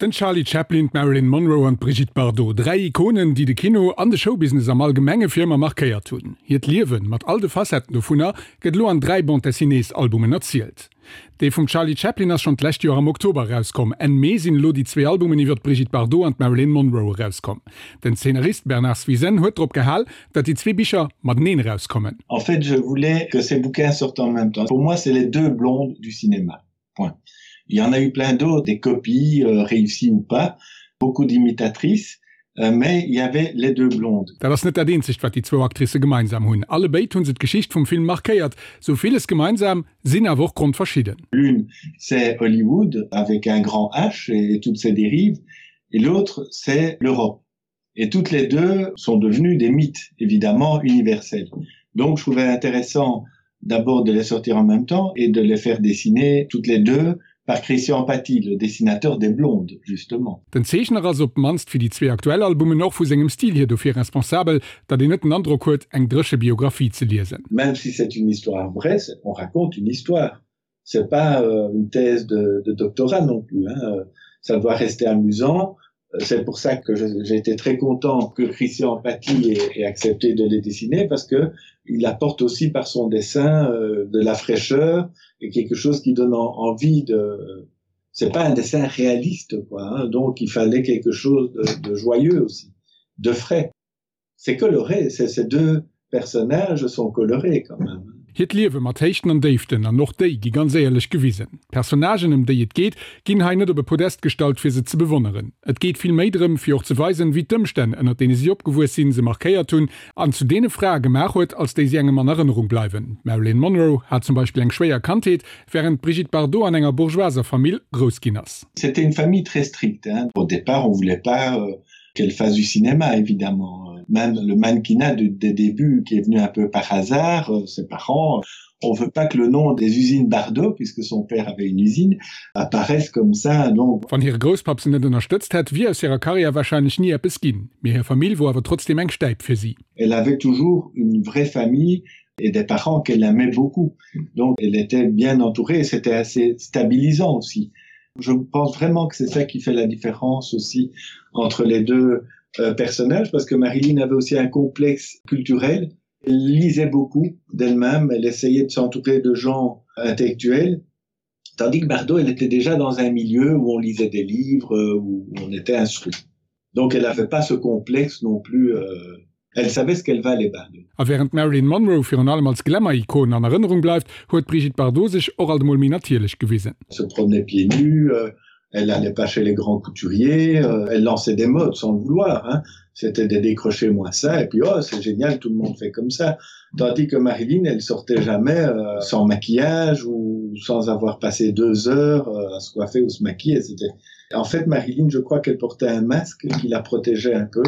Den Charlie Chaplin, d'Marilyn Monroe an d'Brigitte Bardot, 3 Ikonen, déi de Kino an de Showbusiness am Allgemenge fir ëmmer markéiert hunn. Hiert Liewen, mat all de Facetten dovunner, gëtt elo an 3 Bande-dessinées-Albumen erzielt. Dee vum Charlie Chaplin ass schonn d'lescht Joer am Oktober erauskomm. Enn Mee sinn elo déi zwee Albumen iwwer d'Brigitte Bardot an d'Marilyn Monroe erauskomm. Den Zeenarist Bernard Swizen huet drop gehal, datt déi zwee Bicher mateneen erauskommen. En fait, je voulais que ces bouquins sortent en même temps. Pour moi, c'est les deux blondes du cinéma. Point. Il y en a eu plein d'autres, des copies euh, réussies ou pas, beaucoup d'imitatrices, euh, mais il y avait les deux blondes. Dat ass net dat eenzegt, wat déi zwou Actricë gemeinsam hunn. Allebéid hu se d'Geschicht vum Film markéiert. Sou villes gemeinsam, sinn awer och grondverschidden. L'une, c'est Hollywood avec un grand H et toutes ses dérives, et l'autre, c'est l'Europe. Et toutes les deux sont devenues des mythes, évidemment universels. Donc je trouvais intéressant d'abord de les sortir en même temps et de les faire dessiner toutes les deux par Christian Paty, le dessinateur des Blondes, justement. Den Zeechner ass, op d'mannst fir déi zwee aktuell Albumen, och vu sengem Stil hier dofir responsabel, datt een net den Androck huet, eng dréche Biographie ze liesen. Même si c'est une histoire vraie, on raconte une histoire. C'est pas euh, une thèse de, de doctorat non plus. Hein. Ça doit rester amusant. C'est pour ça que j'ai été très content que Christian Paty ait, ait accepté de les dessiner parce que il apporte aussi par son dessin euh, de la fraîcheur et quelque chose qui donne en, envie de c'est pas un dessin réaliste quoi hein, donc il fallait quelque chose de, de joyeux aussi de frais c'est coloré c'est ces deux personnages sont colorés quand même. Hiert Liewe mat Héichten an Déiften, an och déi gi ganz éierlech gewisen. D'Personnagen, ëm déi et geet, ginn hei net op e Podest gestallt, fir se ze bewonneren. Et geet vill méi drëm, fir och ze weisen, wéi d'Ëmstänn, ënnert deene si opgewuess sinn, se markéiert hunn an zu deene Frae gemaach huet, als déi si engem an Erënnerung bleiwen. D'Marilyn Monroe hat zum Beispill eng schwéier Kandheet, wärend d'Brigitte Bardot an enger bourgeoiser Famill grouss ginn ass. C'était une famille très stricte, hein. Au départ, on voulait pas qu'elle fasse du cinéma, évidemment. Même le mannequinat du, des débuts qui est venu un peu par hasard, euh, ses parents, on veut pas que le nom des usines Bardot, puisque son père avait une usine, apparaisse comme ça. Donc... Wann hire Grousspapp se net ënnerstëtzt hätt, wier aus hirer Karriär warscheinlech ni eppes ginn. Mee hir Famill wor awer trotzdem eng Stäip fir si. Elle avait toujours une vraie famille et des parents qu'elle aimait beaucoup. Donc elle était bien entourée et c'était assez stabilisant aussi. Je pense vraiment que c'est ça qui fait la différence aussi entre les deux euh, personnages parce que Marilyn avait aussi un complexe culturel. Elle lisait beaucoup d'elle-même, elle essayait de s'entourer de gens intellectuels, tandis que Bardot, elle était déjà dans un milieu où on lisait des livres, euh, où on était instruit. Donc elle n'avait pas ce complexe non plus euh, elle savait ce qu'elle valait Bardot. A wärend d'Marilyn Monroe virun allem als Glamour-Ikon an Erënnerung bleift, huet d'Brigitte Bardot sech och alt emol méi natierlech gewisen. Elle se promenait pieds nus, euh, elle allait pas chez les grands couturiers, euh, elle lançait des modes sans le vouloir. Hein. C'était des décrochés moins ça, et puis oh, c'est génial, tout le monde fait comme ça. Tandis que Marilyn, elle sortait jamais euh, sans maquillage ou sans avoir passé deux heures euh, à se coiffer ou se maquiller. C'était En fait, Marilyn, je crois qu'elle portait un masque qui la protégeait un peu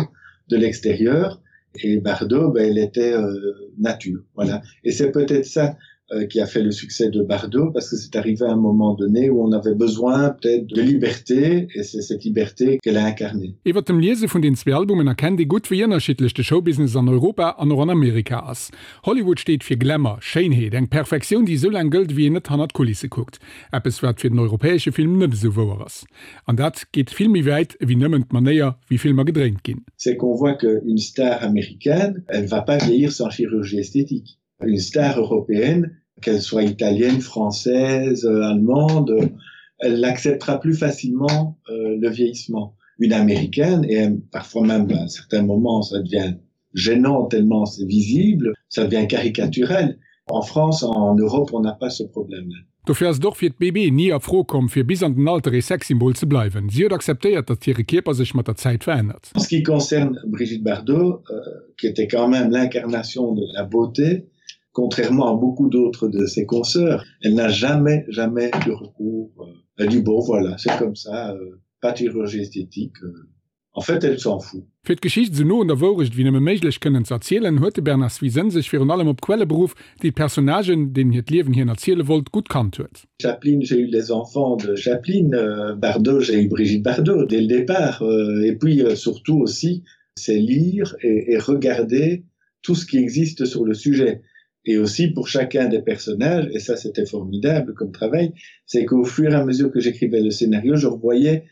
de l'extérieur et Bardot, ben, elle était euh, nature. Voilà. Et c'est peut-être ça euh, qui a fait le succès de Bardot parce que c'est arrivé à un moment donné où on avait besoin peut-être de liberté et c'est cette liberté qu'elle a incarnée. Iwwer dem Liese vun den zwee Albumen erkennt ee gutt, wéi ënnerschiddlech de Showbusiness an Europa an och an Amerika ass. Hollywood steet fir Glamour, Schéinheet, eng Perfektioun, déi esou laang gëllt, ewéi een net hannert d'Kulisse kuckt. Eppes, wat fir den europäesche Film net esou wouer ass. An dat geet vill méi wäit ewéi nëmmen d'Manéier, wéi Filmer gedréint ginn. C'est qu'on voit que une star américaine, elle va pas vieillir sans chirurgie esthétique. Une star européenne, qu'elle soit italienne, française, allemande, elle acceptera plus facilement euh, le vieillissement. Une américaine, et parfois même à certains moments, ça devient gênant tellement c'est visible, ça devient caricaturel. En France, en Europe, on n'a pas ce problème-là. Dofir ass et och fir d'BB ni a Fro komm, fir bis an den Alter ee Sexsymbol ze bleiwen. Si huet akzeptéiert, datt hire Kierper sech mat der Zäit verännert. En ce qui concerne Brigitte Bardot, euh, qui était quand même l'incarnation de la beauté, contrairement à beaucoup d'autres de ses consoeurs, elle n'a jamais, jamais eu recours. Euh, elle dit bon voilà, c'est comme ça, euh, pas de chirurgie esthétique. Euh, En fait, elle s'en fout. Fir d'Geschicht esou no un der Wourecht ewéi nëmme méiglech kënnen ze erzielen, huet de Bernard Swizen sech virun allem op Quelle beruff, déi d'Personnagen, deenen hiert Liewen hien erziele wollt, gutt kannt huet. Chaplin, j'ai eu les enfants de Chaplin, Bardot, j'ai eu Brigitte Bardot dès le départ et puis surtout aussi c'est lire et regarder tout ce qui existe sur le sujet et aussi pour chacun des personnages et ça c'était formidable comme travail, c'est qu'au fur et à mesure que j'écrivais le scénario, je revoyais.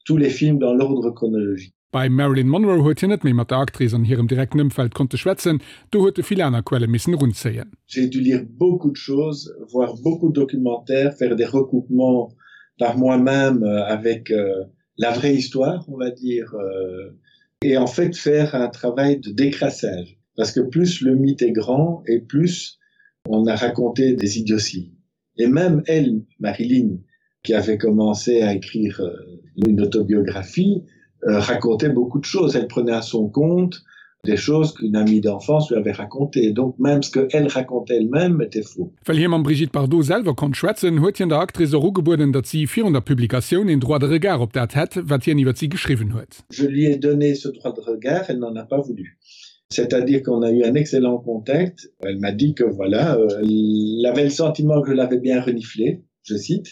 tous les films dans l'ordre chronologique. Bei Marilyn Monroe huet hien net méi mat der Actrice an hirem direkten Ëmfeld konnte schwätzen, do huet e vill aner Quelle missen erunzéien. J'ai dû lire beaucoup de choses, voir beaucoup de documentaires, faire des recoupements par moi-même avec la vraie histoire, on va dire, et en fait faire un travail de décrassage. Parce que plus le mythe est grand et plus on a raconté des idioties. Et même elle, Marilyn, qui avait commencé à écrire une autobiographie, racontait beaucoup de choses. Elle prenait à son compte des choses qu'une amie d'enfance lui avait racontées. Donc même ce qu'elle racontait elle-même était faux. Well hie mam Brigitte Bardot selwer konnt schwätzen, huet hien der Actrice och ugebueden, datt si virun der Publikatioun een Droit de regard op dat hätt, wat hien iwwer si geschriwwen huet. Je lui ai donné ce droit de regard, elle n'en a pas voulu. C'est-à-dire qu'on a eu un excellent contact. Elle m'a dit que voilà, elle avait le sentiment que je l'avais bien reniflé, je cite,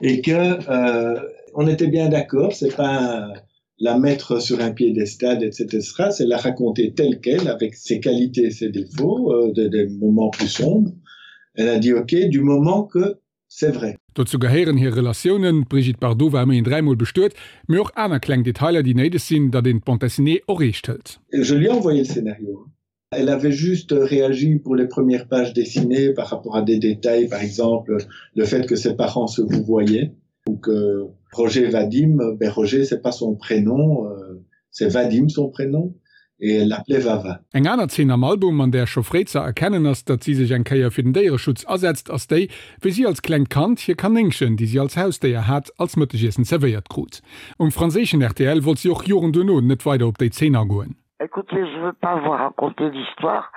et que euh, on était bien d'accord, c'est pas la mettre sur un piédestal, etc., c'est la raconter telle qu'elle, avec ses qualités et ses défauts, euh, des, des moments plus sombres. Elle a dit ok, du moment que c'est vrai. Dozou gehéieren hir Relatiounen, d'Brigitte Bardot war ëmmerhin dräimol bestuet, mee och aner kleng Detailer, déi néideg sinn, datt een d'Bande dessinée och eescht hëlt. Je lui ai envoyé le scénario. Elle avait juste réagi pour les premières pages dessinées par rapport à des détails, par exemple le fait que ses parents se vouvoyaient ou que Roger Vadim, ben Roger c'est pas son prénom, euh, c'est Vadim son prénom et elle l'appelait Vava. Eng aner Zeen am Album, an där scho fréi ze erkennen ass, datt si sech eng Kéier fir den Déiereschutz asetzt, ass déi, wéi si als klengt Kand hir Kanéngchen, déi si als Hausdéier hat, als Mëttegiessen zerwéiert krut. Um franséischen rtl wollt si och Joren duerno net weider op déi Zeen agoen. Écoutez, je veux pas vous raconter l'histoire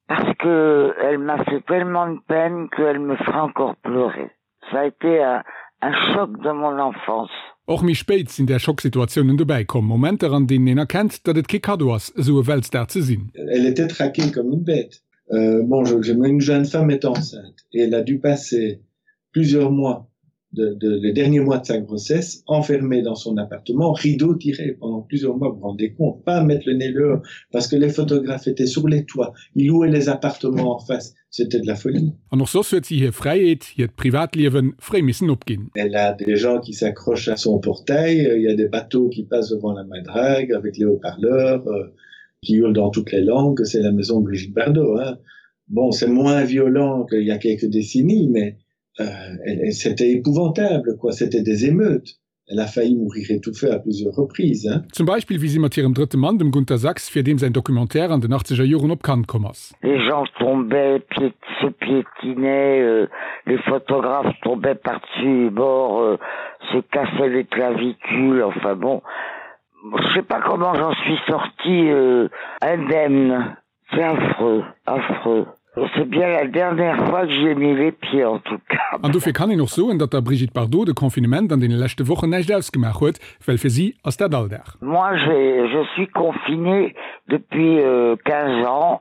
parce que elle m'a fait tellement de peine qu'elle me fera encore pleurer. Ça a été un, un choc de mon enfance. Och méi spéit sinn där Schocksituatiounen dobäi komm, Momenter an deenen een erkennt, datt et kee Kaddo ass, esou e Weltstar ze sinn. Elle était traquée comme une bête. Euh, bon, je, je, une jeune femme est enceinte et elle a dû passer plusieurs mois de, de, les derniers mois de sa grossesse enfermée dans son appartement, rideau tiré pendant plusieurs mois, vous vous rendez compte, pas mettre le nez dehors parce que les photographes étaient sur les toits, ils louaient les appartements en face, c'était de la folie. An och soss huet si hir Fräiheet, hiert Privatliewen, fréi missen opginn. Elle a des gens qui s'accrochent à son portail, il y a des bateaux qui passent devant la madrague avec les haut-parleurs euh, qui hurlent dans toutes les langues, c'est la maison Brigitte Bardot. Hein. Bon, c'est moins violent qu'il y a quelques décennies, mais euh, c'était épouvantable, quoi, c'était des émeutes. Elle a failli mourir étouffée à plusieurs reprises. Hein. Zum Beispill wéi si mat hirem drëtte Mann, dem Gunter Sachs, fir deem säin Documentaire an den achtzeger Joren op Cannes komm ass. Les gens tombaient, pié, se piétinaient, euh, les photographes tombaient par-dessus bord, euh, se cassaient les clavicules, enfin bon. Je sais pas comment j'en suis sortie euh, indemne. C'est affreux, affreux. C'est bien la dernière fois que j'ai mis les pieds en tout cas. An dofir kann een och soen, datt der Brigitte Bardot de Confinement an deene leschte Wochen näischt ausgemaach huet, well fir si ass dat Alldag. Moi j'ai, je suis confinée depuis 15 ans,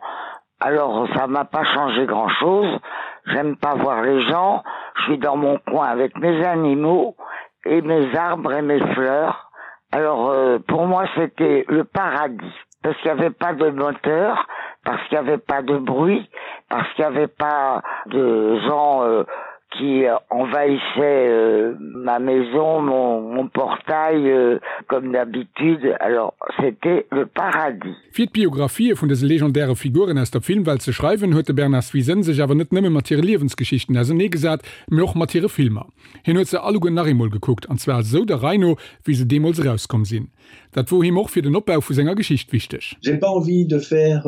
alors ça m'a pas changé grand chose, j'aime pas voir les gens, je suis dans mon coin avec mes animaux et mes arbres et mes fleurs, alors pour moi c'était le paradis parce qu'il n'y avait pas de moteur, parce qu'il n'y avait pas de bruit, parce qu'il n'y avait pas de gens euh, qui envahissaient euh, ma maison, mon, mon portail euh, comme d'habitude. Alors c'était le paradis. Fir d'Biographië vun dëse legendäre Figuren aus der Filmwelt ze schreiwen, huet de Bernard Swizen sech awer net nëmme mat hire Liewensgeschichten auserneegesat, mee och mat hire Filmer. Hien huet se alleguer nach eemol gekuckt, an zwar esou der Rei no, wéi se deemools erauskomm sinn. Dat wor him och fir den Opbau vu senger Geschicht wichteg. J'ai pas envie de faire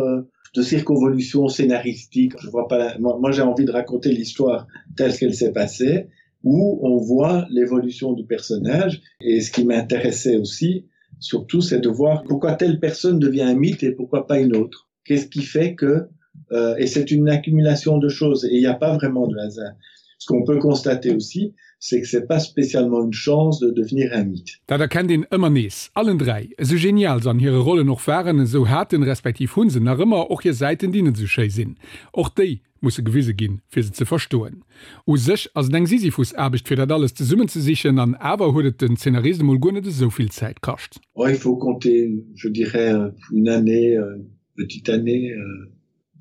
de circonvolutions scénaristiques, je vois pas, moi j'ai envie de raconter l'histoire telle qu'elle s'est passée, où on voit l'évolution du personnage et ce qui m'intéressait aussi, surtout c'est de voir pourquoi telle personne devient un mythe et pourquoi pas une autre. Qu'est-ce qui fait que euh, et c'est une accumulation de choses et il n'y a pas vraiment de hasard. Ce qu'on peut constater aussi, c'est que c'est pas spécialement une chance de devenir un mythe. Dat erkennt een ëmmer nees. Allen 3, esou genial se an hire Rollen och waren, esou haten, respektiv hunn se nach ëmmer och hir Säiten, déi net esou schéi sinn. Och déi musse gewise ginn, fir se ze verstoen. U sech ass et eng Sisyphus-Aarbecht, fir dat alles zesummenzesichen, an awer huet et den Zeenarist emol guer net esou vill Zäit kascht. Oh, il faut compter, je dirais, une année, une petite année,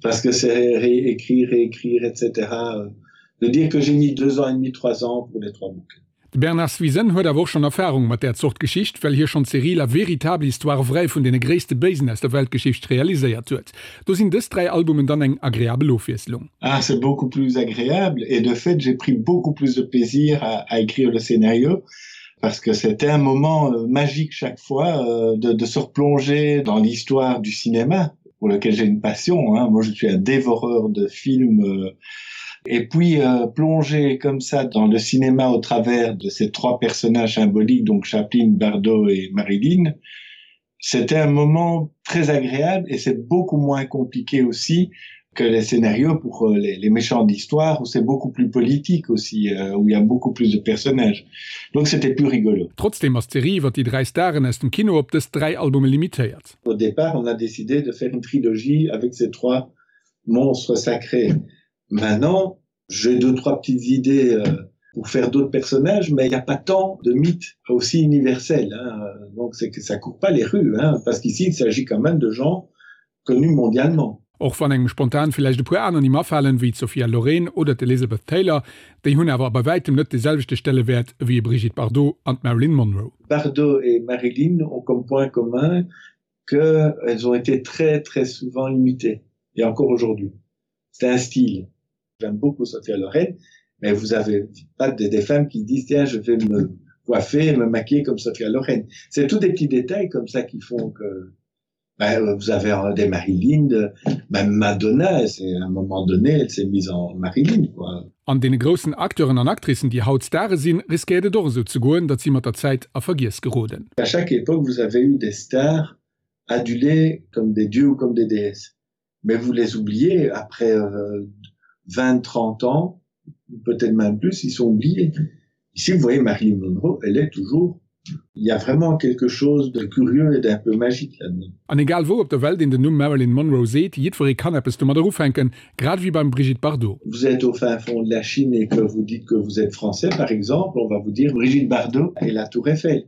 parce que c'est réécrire, réécrire, etc. De dire que j'ai mis deux ans et demi, trois ans pour les trois bouquins. De Bernard Swizen huet awer och schonn Erfarung mat där Zort Geschicht, well hie schonn d'Serie La véritable histoire vraie vun deene gréisste Béisen aus der Weltgeschicht realiséiert huet. Do sinn dës 3 Albumen dann eng agreabel Ofwiesslung. Ah, c'est beaucoup plus agréable et de fait j'ai pris beaucoup plus de plaisir à, à écrire le scénario parce que c'était un moment euh, magique chaque fois euh, de, de se replonger dans l'histoire du cinéma pour lequel j'ai une passion hein. moi je suis un dévoreur de films euh, et puis euh, plonger comme ça dans le cinéma au travers de ces trois personnages symboliques donc Chaplin, Bardot et Marilyn c'était un moment très agréable et c'est beaucoup moins compliqué aussi que les scénarios pour euh, les, les méchants d'histoire où c'est beaucoup plus politique aussi euh, où il y a beaucoup plus de personnages donc c'était plus rigolo Trotzdem ass d'Serie iwwer déi 3 Staren aus dem Kino op dës 3 Albume limitéiert. Au départ on a décidé de faire une trilogie avec ces trois monstres sacrés maintenant j'ai deux trois petites idées euh, pour faire d'autres personnages mais il n'y a pas tant de mythes aussi universels hein. donc c'est que ça court pas les rues hein, parce qu'ici il s'agit quand même de gens connus mondialement. Och wann engem spontan villäicht e puer aner Nimm afalen, wéi d'Sophia Loren oder d'Elizabeth Taylor, déi hunn awer bei wäitem net de selwechte Stellewäert ewéi e Brigitte Bardot an d'Marilyn Monroe. Bardot et Marilyn ont comme point commun que elles ont été très très souvent imitées et encore aujourd'hui. C'est un style. J'aime beaucoup Sophia Loren, mais vous avez pas des, des femmes qui disent tiens je vais me coiffer et me maquiller comme Sophia Loren. C'est tous des petits détails comme ça qui font que ben, vous avez euh, des Marilyn, même Madonna, c'est à un moment donné, elle s'est mise en Marilyn quoi. An deene groussen Acteuren an Actricen, déi haut Stare sinn, riskéiert et och esou ze goen, datt si mat der Zäit a Vergiess geroden. À chaque époque, vous avez eu des stars adulées comme des dieux ou comme des déesses. Mais vous les oubliez après euh, 20, 30 ans, peut-être même plus, ils sont oubliés. Ici, vous voyez Marilyn Monroe, elle est toujours Il y a vraiment quelque chose de curieux et d'un peu magique là-dedans. An egal wou op der Welt een den Numm Marilyn Monroe seet, jiddweree kann eppes domadder ufänken, grad ewéi beim Brigitte Bardot. Vous êtes au fin fond de la Chine et que vous dites que vous êtes français par exemple, on va vous dire Brigitte Bardot et la Tour Eiffel.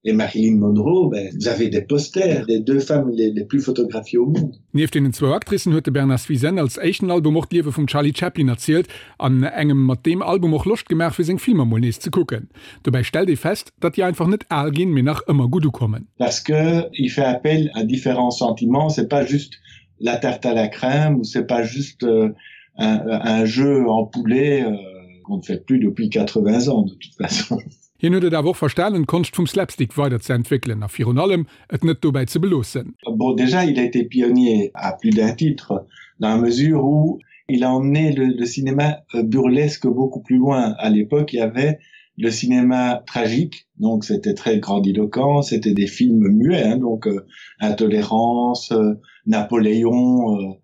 Et Marilyn Monroe, ben, vous avez des posters des deux femmes les, les plus photographiées au monde. Nieft deenen zwou Actricen huet de Bernard Swizen als éischten Album och d'Liewe vum Charlie Chaplin erzielt an engem mat deem Album och Loscht gemaach fir seng Filmer mol nees ze kucken. Dobäi stellt ee fest, datt déi einfach net al ginn, mee nach ëmmer gutt ukommen. Parce que il fait appel à différents sentiments, c'est pas juste la tarte à la crème ou c'est pas juste euh, un, un jeu en poulet euh, qu'on ne fait plus depuis 80 ans de toute façon. Hien huet et awer och verstanen, d'Konscht vum Slapstick weider ze entwéckelen a virun allem et net dobäi ze beloossen. Bon, déjà il a été pionnier à plus d'un titre dans la mesure où il a emmené le, le cinéma euh, burlesque beaucoup plus loin. À l'époque, il y avait le cinéma tragique, donc c'était très grandiloquent, c'était des films muets, hein, donc euh, intolérance, euh, Napoléon, euh,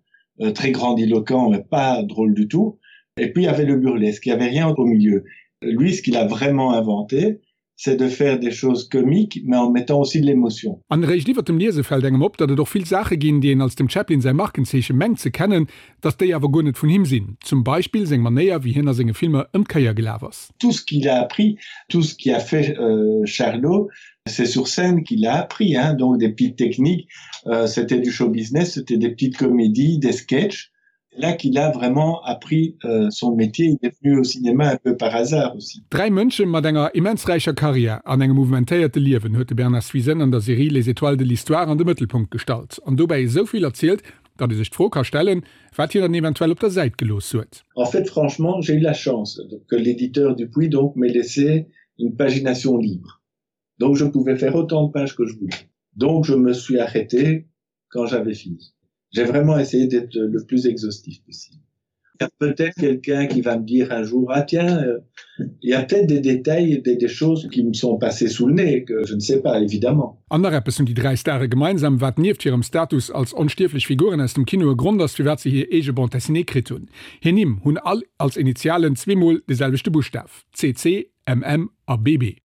euh, très grandiloquent, mais pas drôle du tout. Et puis il y avait le burlesque, il n'y avait rien au milieu. Lui, ce qu'il a vraiment inventé, c'est de faire des choses comiques, mais en mettant aussi de l'émotion. An eréischt iwwer dem Liese fält engem op, datt et och vill Saache ginn, déi een als dem Chaplin säi Markenzeeche mengt ze kennen, datt déi awer guer net vun him sinn. Zum Beispill seng Manéier, wéi hien a senge Filmer ëm d'Kéier gelaf ass. Tout ce qu'il a appris, tout ce qui a fait euh, Charlot, c'est sur scène qu'il a appris, hein, donc des petites techniques, euh, c'était du show business, c'était des petites comédies, des sketchs. Là qu'il a vraiment appris euh, son métier, il est venu au cinéma un peu par hasard aussi. Dräi Mënsche mat enger immens räicher Karriär an engem mouvementéierte Liewen huet de Bernard Swizen an der Serie Les étoiles de l'histoire an de Mëttelpunkt gestallt an dobäi esou vill erzielt, datt ee sech d'Fro ka stellen, wat hien dann eventuell op der Säit gelooss huet. En fait, franchement, j'ai eu la chance que l'éditeur Dupuis donc m'ait laissé une pagination libre. Donc je pouvais faire autant de pages que je voulais. Donc je me suis arrêté quand j'avais fini. J'ai vraiment essayé d'être le plus exhaustif possible. Il y a peut-être quelqu'un qui va me dire un jour ah tiens euh, il y a peut-être des détails des, des choses qui me sont passées sous le nez que je ne sais pas évidemment. An nach eppes hunn déi dräi Stare gemeinsam, wat nieft hirem Status als onstierflech Figuren aus dem Kino e Grond ass, firwat se hir eege Bande dessinée kritt hunn. Hir Nimm hunn all als Initialen zweemol de selwechte Buschtaf, CC, MM a BB.